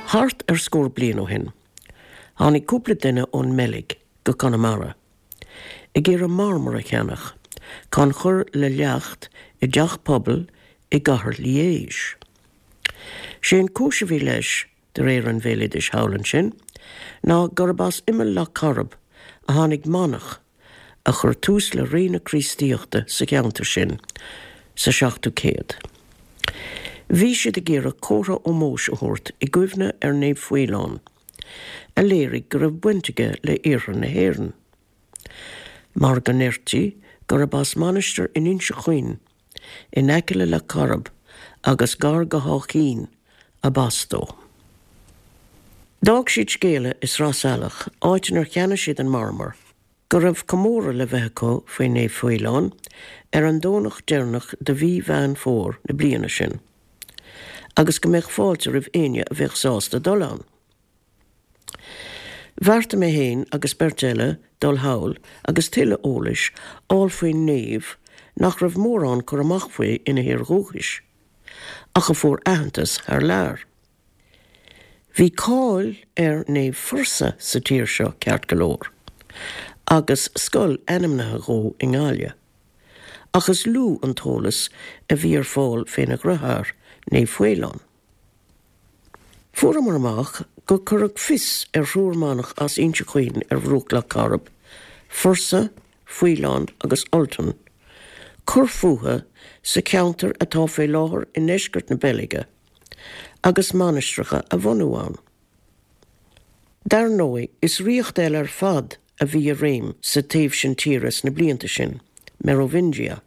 Thart ar scór bliain ó shin, tháinig cúpla duine ón mBeilg go Conamara ag iarraidh marmar a cheannach chun cur le leacht i dteach pobail i gcathair Liège. Sé an cúis a bhí leis, de réir an bhéaloidis thall ansin, ná gurb as imeall Loch Coirib a tháinig manach a chuir tús le ré na Críostaíochta sa cheantar sin sa seachtú céad. Bhí siad ag iarraidh comhartha ómóis a thabhairt i gcuimhne ar Naomh Faolán, a léirigh go raibh baint aige le iarthar na hÉireann. Mar go ndeirtí gurb as mainistir in Inse Chaoin, in aice le Loch Coirib agus gar go hÁth Cinn, ab as dó. D'fhág siad scéala i Sraith Salach, áit inar cheannaigh siad an marmar, go raibh comóradh le bheith acu faoi Naomh Faolán ar an Domhnach deireanach de mhí Mheán Fómhair na bliana sin, agus go mbeadh fáilte roimh éinne a bheadh sásta dul ann. Bheartaigh mé féin agus beirt eile dul thall agus tuilleadh eolais fháil faoin naomh nach raibh mórán cur amach faoi ina thír dhúchais, ach a fuair aitheantas thar lear. Bhí cáil ar Naomh Fursa sa tír seo ceart go leor, agus scoil ainmnithe dhó i nGaillimh, ach is lú an t-eolas a bhí ar fáil féna dhriotháir, Naomh Faolán. Fuaireamar amach gur cuireadh fios ar thriúr manach as Inse Chaoin ar bhruach Loch Coirib, Fursa, Faolán agus Ultan, cur fúthu sa cheantar atá fé láthair i ndeisceart na Beilge, agus mainistreacha a bhunú ann. Dar ndóigh, is ríocht eile ar fad a bhí i réim sa taobh sin tíre sna blianta sin, Merovingia.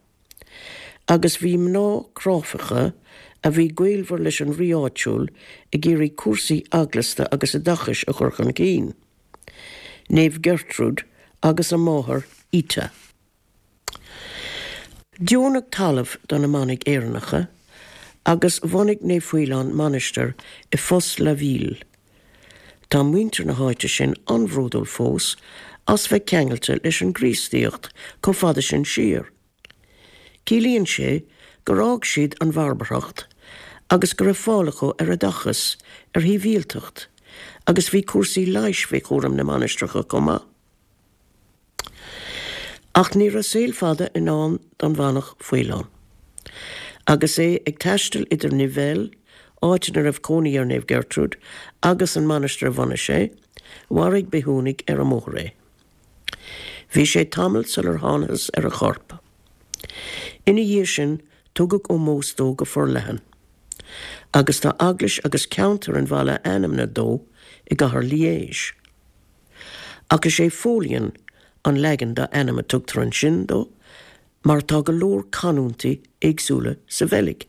Agus bhí mná cráifeacha a bhí gaolmhar leis an rí áitiúil ag iarraidh cúrsaí eaglasta agus oideachais a chur chun cinn, Naomh Gertrude agus a máthair Ita. Deonadh talamh do na manaigh Éireannacha agus bhunaigh Naomh Faolán mainistir i Fosses-la-Ville. Tá muintir na háite sin an-bhródúil fós as bheith ceangailte leis an gCríostaíocht chomh fada sin siar. Ciallaíonn sé gur fhág siad an bharbarthacht agus go raibh fáil acu ar oideachas, ar shibhialtacht, agus bhí cúrsaí leighis faoi chúram na mainistreacha chomh maith. Ach ní raibh saol fada i ndán don mhanach Faolán. Agus é ag taisteal idir Nivelles, áit ina raibh cónaí ar Naomh Gertrude, agus an mainistir a bhunaigh sé, mharaigh bithiúnaigh ar an mbóthar é. Bhí sé tamall sular thánathas ar a chorp. Ina dhiaidh sin, tugadh ómós dó go forleathan, agus tá eaglais agus ceantar an bhaile ainmnithe dó i gcathair Liège. Ach is é Pholien an leagan dá ainm a tugtar ansin dó mar tá go leor canúintí éagsúla sa Bheilg.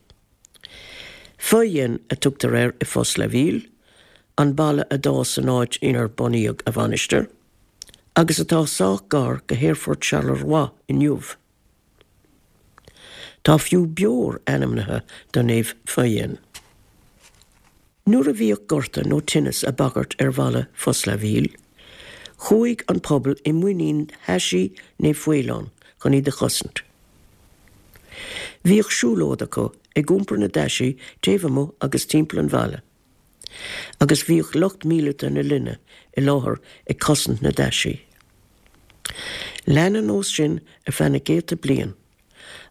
Feuillien a tugtar air i Fosses-la-Ville, an baile a d'fhás san áit inar bunaíodh a mhainistir, agus atá sách gar go hAerfort Charleroi inniu. Tá fiú beoir ainmnithe do Naomh Feuillien. Nuair a bhíodh gorta nó tinneas ag bagairt ar bhaile Fosses-la-Ville, chuaigh an pobal i muinín thaisí Naomh Faolán chun iad a chosaint. Bhíodh siúlóid acu ag iompar na dtaisí taobh amuigh agus timpeall an bhaile. Agus bhíodh lucht míleata na linne i láthair ag cosaint na dtaisí. Lean an nós sin ar feadh na gcéadta bliain,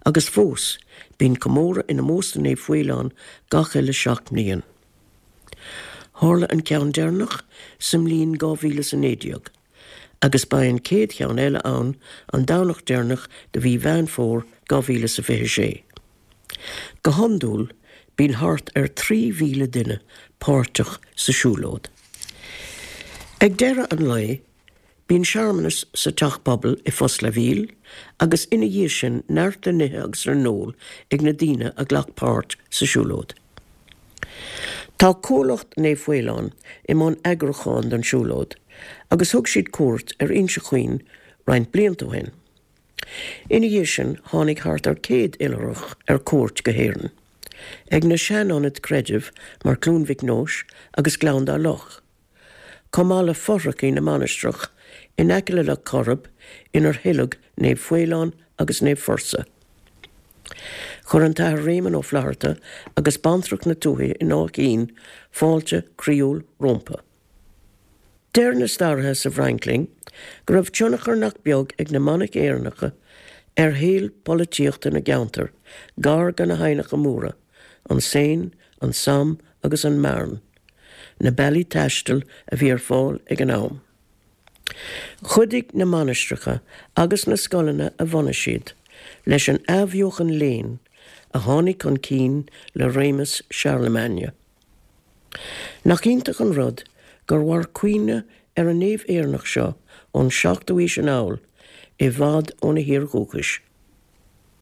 agus fós bíonn comóradh in ómós do Naomh Faolán gach uile sheacht mbliain. Tharla an ceann deireanach sa mbliain 2019, agus beidh an chéad cheann eile ann an Domhnach deireanach de mhí Mheán Fómhair 2026. Go hiondúil bíonn thart ar 3,000 duine páirteach sa siúlóid. Ag deireadh an lae, bíonn searmanas sa Teach Pobail i Fosses-la-Ville agus ina dhiaidh sin neart le n-ithe agus le n-ól ag na daoine a ghlac páirt sa siúlóid. Tá Cuallacht Naomh Faolán i mbun eagrúcháin don siúlóid agus thug siad cuairt ar Inse Chaoin roinnt blianta ó shin. Ina dhiaidh sin tháinig thart ar 100 oilithreach ar cuairt go hÉirinn, ag na sean-ionaid creidimh mar Cluain Mhic Nóis agus Gleann Dá Loch, chomh maith le fothrachaí na mainistreach in aice le Loch Coirib inar hoileadh Naomh Faolán agus Naomh Fursa. Chuir an tAthair Réamonn Ó Flatharta agus Bantracht na Tuaithe in Áth Cinn fáilte croíúil rómpa. Deir na staraithe sa bhFrainc linn go raibh tionchar nach beag ag na manaigh Éireannacha ar shaol polaitíochta na gceantar gar do na haibhneacha móra, an Seine, an Somme agus an Marne, na bealaí taistil a bhí ar fáil ag an am. Chuidigh na mainistreacha agus na scoileanna a bhunaigh siad leis an athbheochan léinn a tháinig chun cinn le réimeas Charlemagne. Nach iontach an rud gur mhair cuimhne ar an naomh Éireannach seo ón seachtú aois anall i bhfad óna thír dhúchais.